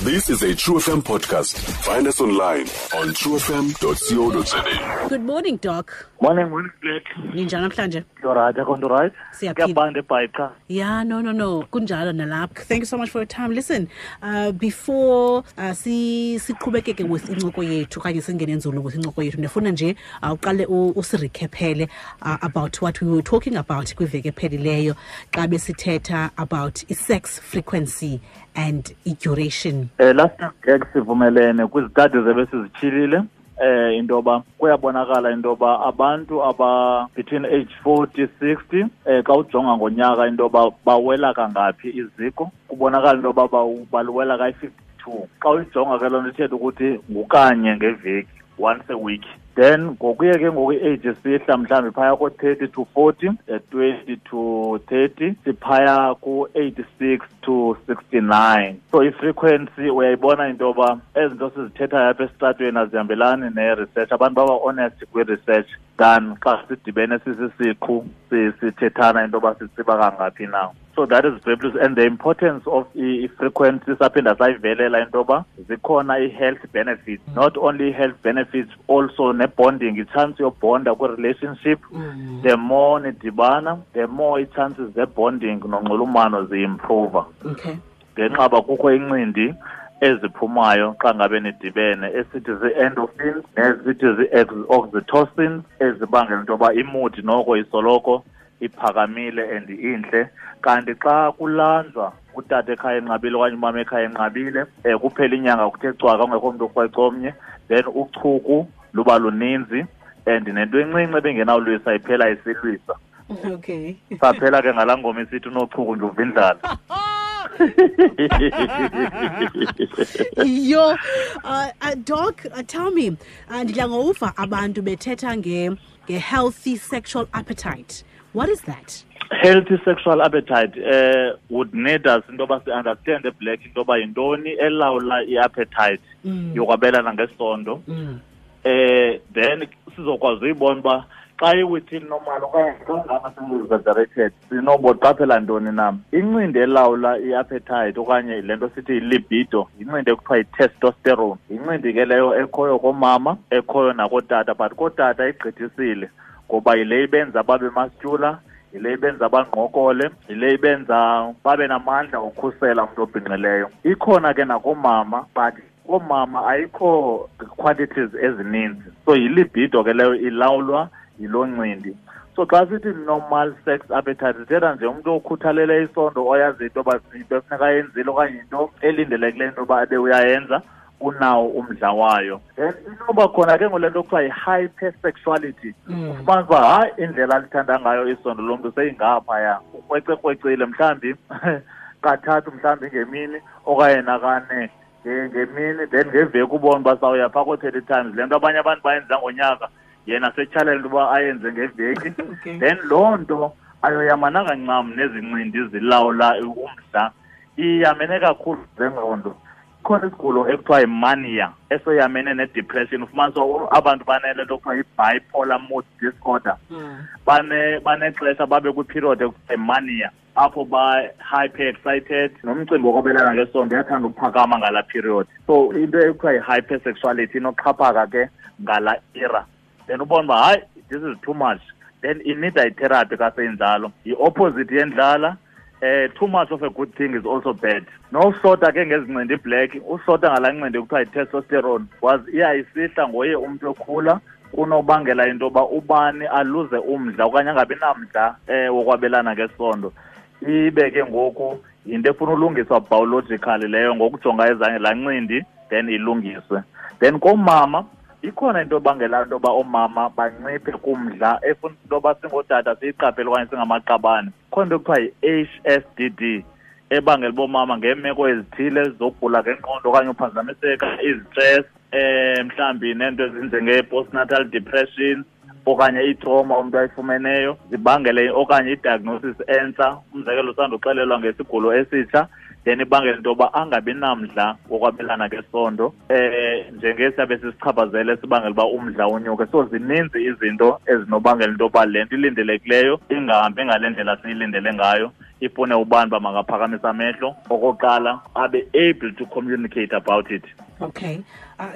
This is a True FM podcast. Find us online on truefm.co.za. Good morning, Doc. Morning, morning, Black. Ninjani namhlanje? You're right, akho nto right? Siyaphila. Kuyabanda eBhayi qha. Yeah, no. Kunjalo nalapha. Thank you so much for your time. Listen, before si siqhubekeke with incoko yethu okanye singene nzulu with incoko yethu, ndifuna nje uqale usirecaphele about what we were talking about kwiveki ephelileyo xa besithetha about i-sex frequency and i-duration. Last week sivumelene kwizitadi zebesizityhilile into yoba kuyabonakala into yoba abantu aba between age 40 60 xa ujonga ngonyaka into yoba bawela kangaphi iziko, kubonakala into yoba baluwela kayi-52. Xa uyijonga ke loo nto ithetha ukuthi ngukanye ngeveki, once a week. Then ngokuye ke ngoku i-age sihla mhlawumbi phaya ko-30 to 40, 20 to 30, siphaya ku-86 to 69. So i-frequency uyayibona into yoba ezi nto sizithethayo apha esitratweni azihambelani ne-research. Abantu baba honest kwi-research than xa sidibene sisisiqhu sithethana into yoba sitsiba kangaphi na. So that is very plus. And the importance of i-frequency saphinda sayivelela into yoba zikhona i-health benefits. Not only health benefits, also ne-bonding, i-chance yobonda kwi-relationship. The more nidibana, the more i-chances ze-bonding nonxulumano ziimprova. Okay. Ngenxa yoba kukho incindi eziphumayo xa ngabe nidibene, esithi zii-endorphins nezithi zii-oxytocin, ezibangela into yoba imudi noko isoloko iphakamile and intle. Kanti xa kulanjwa utata ekhaya enqabile okanye umama ekhaya enqabile, kuphela inyanga kuthe cwaka kungekho mntu okrweca omnye, then uchuku luba luninzi and nento encinci ebengenawulwisa iphela isilwisa. Okay. Saphela ke ngalaa ngoma isithi unochuku nje uva indlala. Yo, Doc, tell me, ndidla ngouva abantu bethetha nge-healthy sexual appetite. What is that? Healthy sexual appetite would need us into yoba si-understand Black into yoba yintoni elawula i-appetite yokwabelana ngesondo. Then sizokwazi uyibona uba xa i-within normal okanye xa ngaba seyi-exaggerated sinoboqaphela ntoni na. Incindi elawula i-appetite okanye le nto sithi yi-libido, yincindi ekuthiwa yi-testosterone. Yincindi ke leyo ekhoyo koomama, ekhoyo nakootata, but kootata igqithisile ngoba yile ibenza babe muscular, yile ibenza bangqokole, yile ibenza babe namandla okhusela umntu obhinqileyo. Ikhona ke nakoomama, but koomama ayikho quantities ezininzi. So yilibido ke leyo ilawulwa yiloo ncindi. So xa sithi normal sex appetite, sithetha nje umntu okhuthalele isondo, oyazi into yoba into efuneka ayenzile okanye into elindelekileyo into yoba abe uyayenza, unawo umdla wayo. Then inoba khona ke ngole nto kuthiwa yi-hypersexuality. Ufumanisa uba hayi indlela alithanda ngayo isondo lo mntu seyingaphaya, ukrwecekrwecile mhlawumbi kathathu mhlawumbi ngemini okanye nakane ngemini, then ngeveki ubone uba sawuya phaa koo-30 times. Le nto abanye abantu bayenza ngonyaka, yena setyhalela into yoba ayenze ngeveki. Okay. Then loo nto ayoyamananga ncam nezincindi zilawula umdla, iyamene kakhulu zengqondo. Ikhona isigulo ekuthiwa yimania esoyamene ne-depression. Ufumanisa uba abantu banele nto ekuthiwa yi-bipolar mood disorder. Banexesha babe kwiperiod ekuthiwa yimania apho ba-hyper excited, nomcimbi wokwabelana ngesondo uyathanda ukuphakama ngalaa period. So into ekuthiwa yi-hypersexuality inoxhaphaka ke ngalaa era. Then ubone uba hayi, this is too much. Then inida itherapy xa seyinjalo. Yi-opposite yendlala. Too much of a good thing is also bad. Noshota ke ngezincindi black, ushota ngalaa ncindi kuthiwa yi-testosterone, was iyayisihla ngoye umntu okhula, kunobangela into yoba ubani aluze umdla okanye angabi namdla wokwabelana ngesondo. Ibe ke ngoku yinto efuna ulungiswa biologically leyo, ngokujonga ezange laa ncindi then ilungiswe. Then koomama ikhona into ebangela into yoba oomama banciphe kumdla efuna into yoba singootata siyiqaphele okanye singamaqabane. Ikhona into ekuthiwa yi-HSDD ebangela uba oomama ngeemeko ezithile zokugula ngengqondo okanye uphazamiseka, izitress, mhlawumbi neento ezinjenge-postnatal depression okanye itrauma umntu ayifumeneyo zibangele, okanye i-diagnosis entsha, umzekelo usanduxelelwa ngesigulo esitsha, then ibangela into yoba angabi namdla wokwabelana ngesondo, njengesiyabe sisichaphazele sibangela uba umdla unyuke. So zininzi izinto ezinobangela into yoba le nto ilindelekileyo ingahambi ngale ndlela siyilindele ngayo. Ifune ubani uba makaphakamisa amehlo okokuqala, abe able to communicate about it. Okay.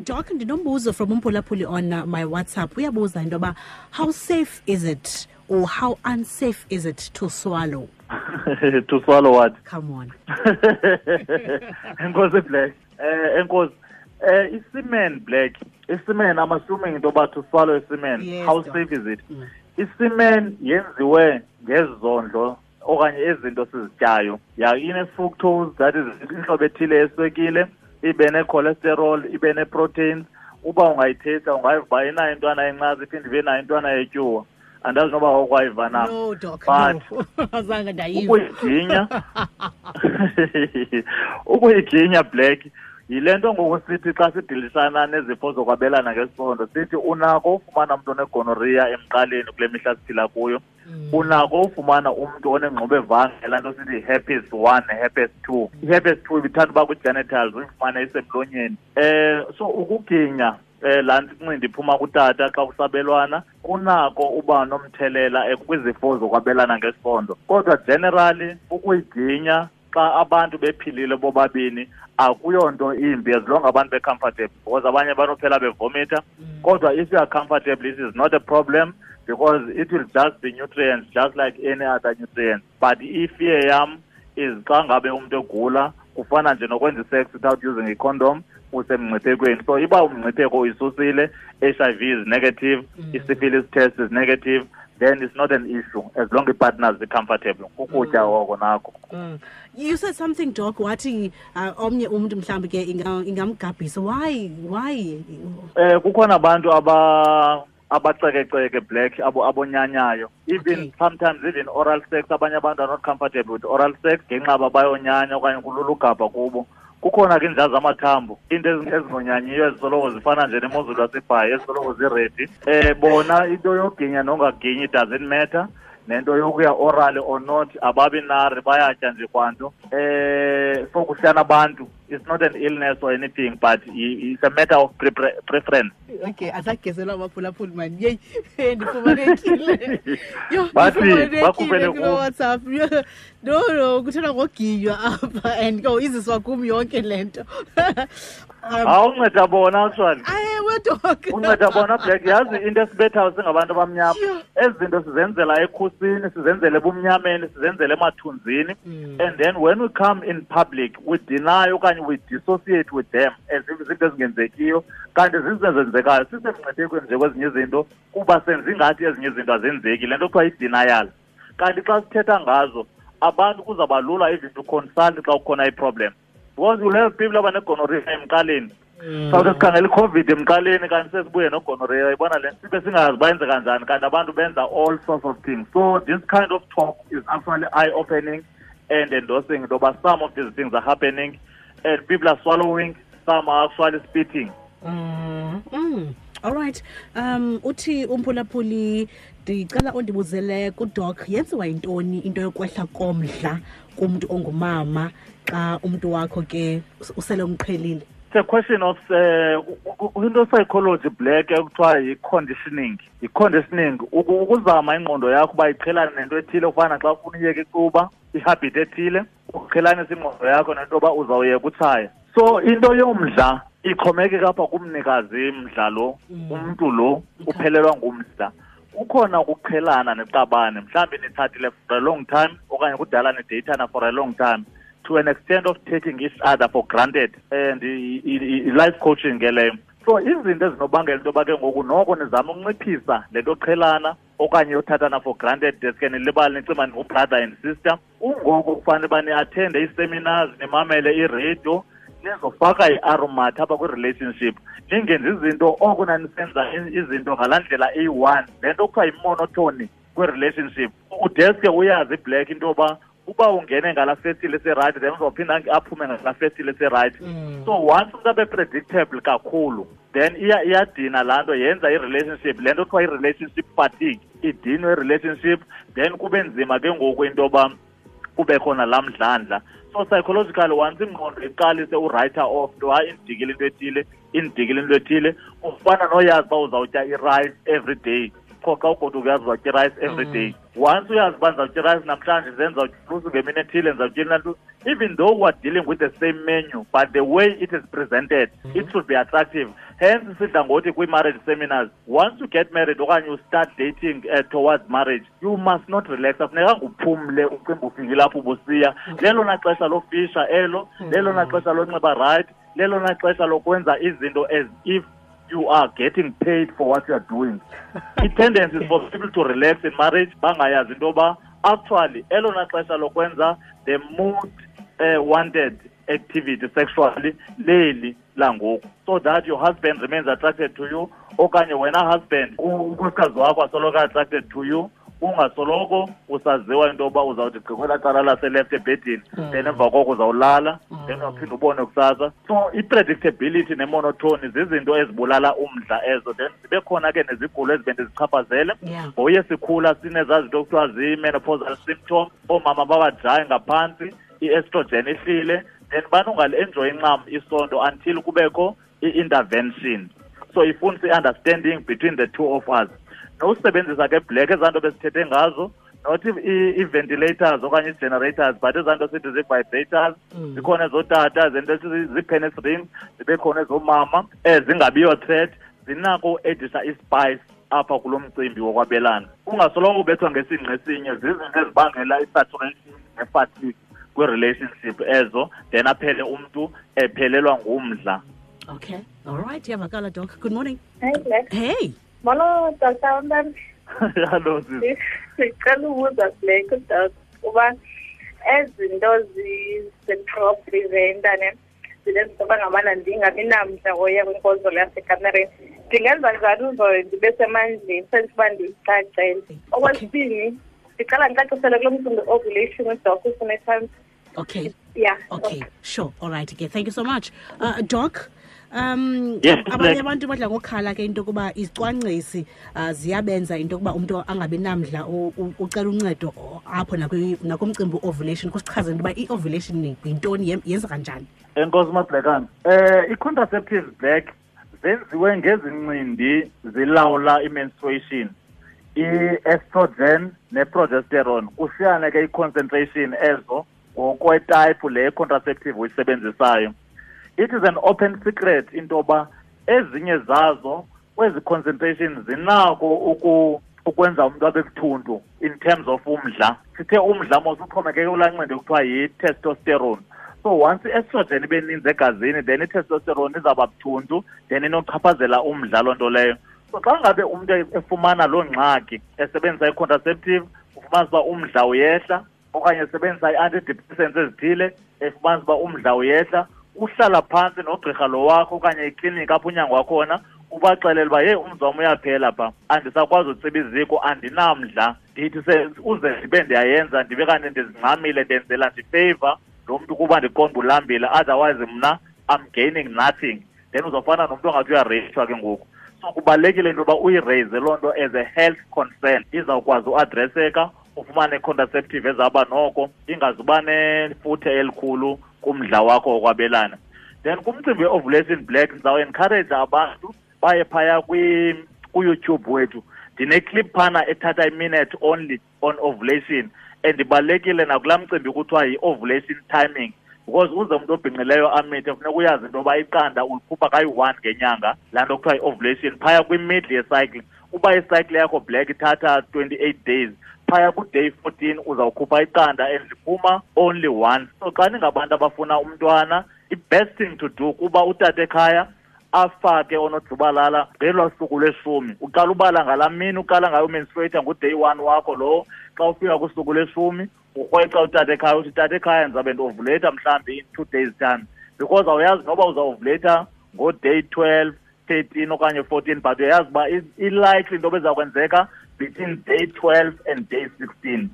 Doc, ndinombuzo from umphulaphuli on my WhatsApp. Uyabuza into yoba how safe is it or how unsafe is it to swallow? To swallow what? Come on. Enkosi, Black. Enkosi. Isemen, Black. Isemen, I'm assuming into yoba to swallow isemen. Yes, how Doc. Safe is it? Isemen yenziwe ngezondlo okanye izinto sizityayo. Ya, ine-fructose, that is inhlobo ethile yeswekile, ibe ne-cholesterol, ibe ne-proteins. Uba ungayithetha ungayiva uba inayo intwana yencasa, iphinde ibe nayo intwana yetyuwa. Andazi noba awukwayiva na. No, Doc, But no. Azange ndayiva. Ukuyiginya, Black, yile nto ngoku sithi xa sidilisana nezifo zokwabelana ngesondo, sithi unako ufumana umntu onegonorrhea emqaleni kule mihla siphila kuyo. Unako ufumana umntu onengxubevange, laa nto sithi herpes 1, herpes 2. I-herpes 2 ibithanda uba kwi-genitals, uyifumane isemlonyeni. So ukuginya laa nto incindi iphuma kutata xa kusabelwana kunako uba nomthelela kwizifo zokwabelana ngesondo. Kodwa generally ukuyiginya xa abantu bephilile bobabini akuyonto imbi, as long abantu be-comfortable, because abanye banophela bevomita. Kodwa if you are comfortable, it is not a problem, because it will just be nutrients just like any other nutrients. But ifear yam is xa ngabe umntu egula, kufana nje nokwenza i-sex without using a condom, usemngciphekweni. So iba umngcipheko uyisusile, HIV is negative, i-syphilis test is negative, then it's not an issue as long as partners be comfortable. Kukutya oko nako. You said something, Doc, wathi omnye umntu mhlawumbi ke ingamgabhisa. Why? Why? Kukhona abantu abacekeceke, Black, abonyanyayo. Even sometimes even oral sex, abanye abantu are not comfortable with oral sex ngenxa yoba bayonyanya okanye kulula ugabha kubo. Kukhona ke iinja zamathambo, into ezingonyanyiyo ezisoloko zifana nje nemozulu yaseBhayi, ezisoloko ziredi. Bona into yoginya nongaginyi doesn't matter, nento yokuya orally or not, ababi nari, bayatya nje kwanto. So kuhlala abantu, it's not an illness or anything, but it's a matter of preference. Okay, asagezelwa amaphulaphuli man. Yeyi, ndifumanekile. Yho, Bathi, ndifumanekile bakhuphele kuloo kum. WhatsApp. Yho, no, no, kuthethwa ngoginywa apha and ke iziswa kum yonke le nto. Awunceda bona, actually. Ewe, Doc. Unceda bona, Black. Yazi into esibethayo singabantu abamnyama. Yho. Ezi zinto sizenzela ekhusini, sizenzele ebumnyameni, sizenzele emathunzini. And then when we come in public, we deny okanye we dissociate with them as if izinto ezingenzekiyo, kanti zizinto ezenzekayo. Sisemngciphekweni nje kwezinye izinto kuba senza ingathi ezinye izinto azenzeki. Le nto kuthiwa yi-denial. Kanti xa sithetha ngazo, abantu kuzawuba lula even to consult xa kukhona i-problem. Because you'll have people abanegonorrhea emqaleni. Sawuthi sikhangela i-COVID emqaleni kanti sesibuye nogonorrhea, uyayibona le nto? Sibe singazi bayenze kanjani, kanti abantu benza all sorts of things. So this kind of talk is actually eye-opening and endorsing into yoba some of these things are happening and people are swallowing, some are actually spitting. All right. Uthi umphulaphuli, ndicela undibuzele kuDoc, yenziwa yintoni into yokwehla komdla kumntu ongumama xa umntu wakho ke usele umqhelile? It's a question of into psychology, Black, ekuthiwa yi-conditioning. Yi-conditioning, ukuzama ingqondo yakho uba iqhelane nento ethile, kufana xa ufuna uyeka icuba, ihabit ethile, uqhelanise ingqondo yakho nento yoba uzawuyeka utshaya. So into yomdla ixhomekeka apha kumnikazi mdla lo, umntu lo uphelelwa ngumdla. Kukhona ukuqhelana neqabane, mhlawumbi nitshatile for a long time okanye kudala nideyithana for a long time, to an extent of taking each other for granted, and i-life coaching ke leyo. So izinto ezinobangela into yoba ke ngoku noko nizame ukunciphisa le nto yoqhelana okanye yothathana for granted, deske nilibale nicima ningu-brother and sister. Ungoku kufanele uba ni-attende ii-seminars, nimamele iradio, nizofaka i-aromat apha kwi-relationship, ningenzi izinto oko nanisenza izinto ngalaa ndlela eyi-one. Le nto kuthiwa yi-monotony kwi-relationship. Udeske uyazi, iBlack, into yoba uba ungene ngalaa festile eserayithi, then uzawuphinda aphume ngalaa festile eserayithi. So once umntu abe predictable kakhulu, then iyadina laa nto, yenza i-relationship, le nto kuthiwa i-relationship fatigue, idinwe i-relationship, then kube nzima ke ngoku into yoba kube khona laa mdlandla. So psychologically, once ingqondo iqalise u-write off, into hayi indidikile into ethile, indidikile into ethile, ufana noyazi uba uzawutya i-rice every day. Qho xa ugoduka uyazi uzawutya i-rice every day. Once uyazi uba ndizawutya irayisi namhlanje, then ndizawutya ulusu ngemini ethile, ndizawutya inantu. Even though we're dealing with the same menu, but the way it is presented, it should be attractive. Hence sidla ngothi kwii-marriage seminars, once you get married okanye you start dating towards marriage, you must not relax. Afunekanga uphumle ucimba ufikile apho ubusiya. Lelona xesha lofisha elo, lelona xesha lonxiba right, lelona xesha lokwenza izinto as if you are getting paid for what you are doing. I-tendency is for people to relax in marriage, bangayazi into yoba actually elona xesha lokwenza the most wanted activity sexually leli langoku, so that your husband remains attracted to you, okanye wena husband unkosikazi wakho asoloko attracted to you, ungasoloko usaziwa into yoba uzawuthi gqi kwelaa cala laseleft ebhedini, then emva koko uzawulala, then uyawuphinda ubone kusasa. So i-predictability nemonotony zizinto ezibulala umdla ezo. Then zibe khona ke nezigulo ezibe ndizichaphazele. Ngoye sikhula sinezaa zinto kuthiwa zii-menopausal symptoms, oomama babajayi ngaphantsi, i-estrogen ihlile, then banongali-enjoyi ncam isondo until kubekho i-intervention. So ifuna i-understanding between the two of us. Nosebenzisa ke black ezaa nto besithethe ngazo, not i-ventilators okanye i-generators, but ezaa nto sithi zii-vibrators, zikhona ezootata, zento zii-penis rings, zibe khona ezoomama, zingabiyo threat, zinako uedisa ispice apha kulo mcimbi wokwabelana. Ungasoloko ubethwa ngesingqi esinye, zizinto ezibangela i-saturation ne-fatigue kwi-relationship ezo, then aphele umntu ephelelwa ngumdla. Okay, all right, iyavakala, Doc. Good morning. Hey, Black. Hey. Molo, Dr. Mbambi. Hello, sis. Sicela ubuza Black, Doc, uba ezinto zi-sexual preventer ne zinenza uba ngabana ndingabi namdla woya kwinkonzo yasekamereni. Ndingenza njani uze ndibe semandleni senze uba ndiyicacele? Okwesibini, ndicela ndicacisele kulo mcimbi ovulation uDoc ufuna time. Okay. Yeah. Okay, sure. All right. Okay, thank you so much. Doc, Yes, abanye Black. abantu badla ngokhala ke into yokuba izicwangcisi ziyabenza into yokuba umntu angabi namdla ucela uncedo apho nakumcimbi ovulation. Kusichazele into yoba i-ovulation yintoni, yenza kanjani? Enkosi Mabhlekana. I-contraceptives Black zenziwe ngezincindi zilawula i-menstruation, i-estrogen ne-progesterone. Kushiyane ke i-concentration ezo ngokwetype le contraceptive uyisebenzisayo. It is an open secret into yoba ezinye zazo kwezi concentration zinako ukwenza umntu abe buthuntu in terms of umdla. Sithe umdla mos uxhomekeke kulaa ncindi kuthiwa yi-testosterone. So once i-estrogen ibe ninzi egazini, then i-testosterone izawuba buthuntu, then inochaphazela umdla loo nto leyo. So xa ngabe umntu efumana loo ngxaki esebenzisa i-contraceptive, ufumanisa uba umdla uyehla, okanye esebenzisa i-antidepressants ezithile, efumanisa uba umdla uyehla, uhlala phantsi nogqirha lo wakho okanye ikliniki apho unyangwa khona, ubaxelele uba, yeyi, umzi wam uyaphela pha, andisakwazi utsiba iziko, andinamdla, ndithi uze ndibe ndiyayenza, ndibe kanti ndizingxamile, ndenzela ndifeyiva lo mntu kuba ndiqonda ulambile, otherwise mna I'm gaining nothing. Then uzawufana nomntu ongathi uyareyishwa ke ngoku. So kubalulekile into yoba uyireyise loo nto as a health concern, izawukwazi uadreseka, ufumane i-contraceptive ezawuba noko ingazuba nefuthe elikhulu kumdla wakho wokwabelana. Then kumcimbi we-ovulation Black, ndizawuencourage abantu baye phaya ku-YouTube wethu. Ndine-clip phana ethatha i-minute only on ovulation, and ibalulekile nakulaa mcimbi kuthiwa yi-ovulation timing, because uze umntu obhinqileyo amithe funeka uyazi into yoba iqanda ulikhupha kayi-1 ngenyanga, laa nto kuthiwa yi-ovulation phaya kwi-middle yecycle. Uba icycle yakho Black ithatha 28 days, phaya ku-day 14 uzawukhupha iqanda and liphuma only once. So xa ningabantu abafuna umntwana, i-best thing to do kuba utata ekhaya afake onojubalala ngelaa suku lweshumi. Uqala ubala ngalaa mini uqala ngayo umenstruate ngu-day 1 wakho lowo. Xa ufika kusuku lweshumi urhwexa utata ekhaya, uthi tata ekhaya ndizabe ndiovulate mhlawumbi in 2 days time, because awuyazi noba uzawuvulate ngo-day 12, 13 okanye 14, but uyayazi uba i-likely into ezakwenzeka between day 12 and day 16.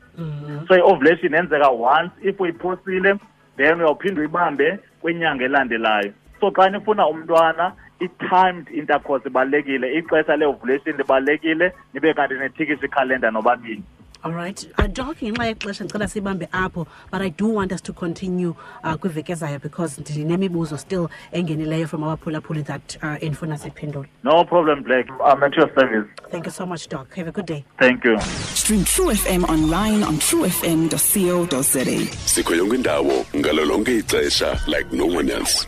So i-ovulation yenzeka once, if uyiphosile then uyawuphinda uyibambe kwinyanga elandelayo. So xa nifuna umntwana, i-timed intercourse ibalulekile, ixesha le-ovulation libalulekile, nibe kanti nethikisa ikhalenda nobabini. All right. Doc, ngenxa yexesha ndicela sibambe apho, but I do want us to continue kwiveki ezayo because ndinemibuzo still engenileyo from abaphulaphuli that endifuna siphendule. No problem, Black. I'm at your service. Thank you so much, Doc. Have a good day. Thank you. Stream True FM online on truefm.co.za. Sikho yonke indawo ngalo lonke ixesha like no one else.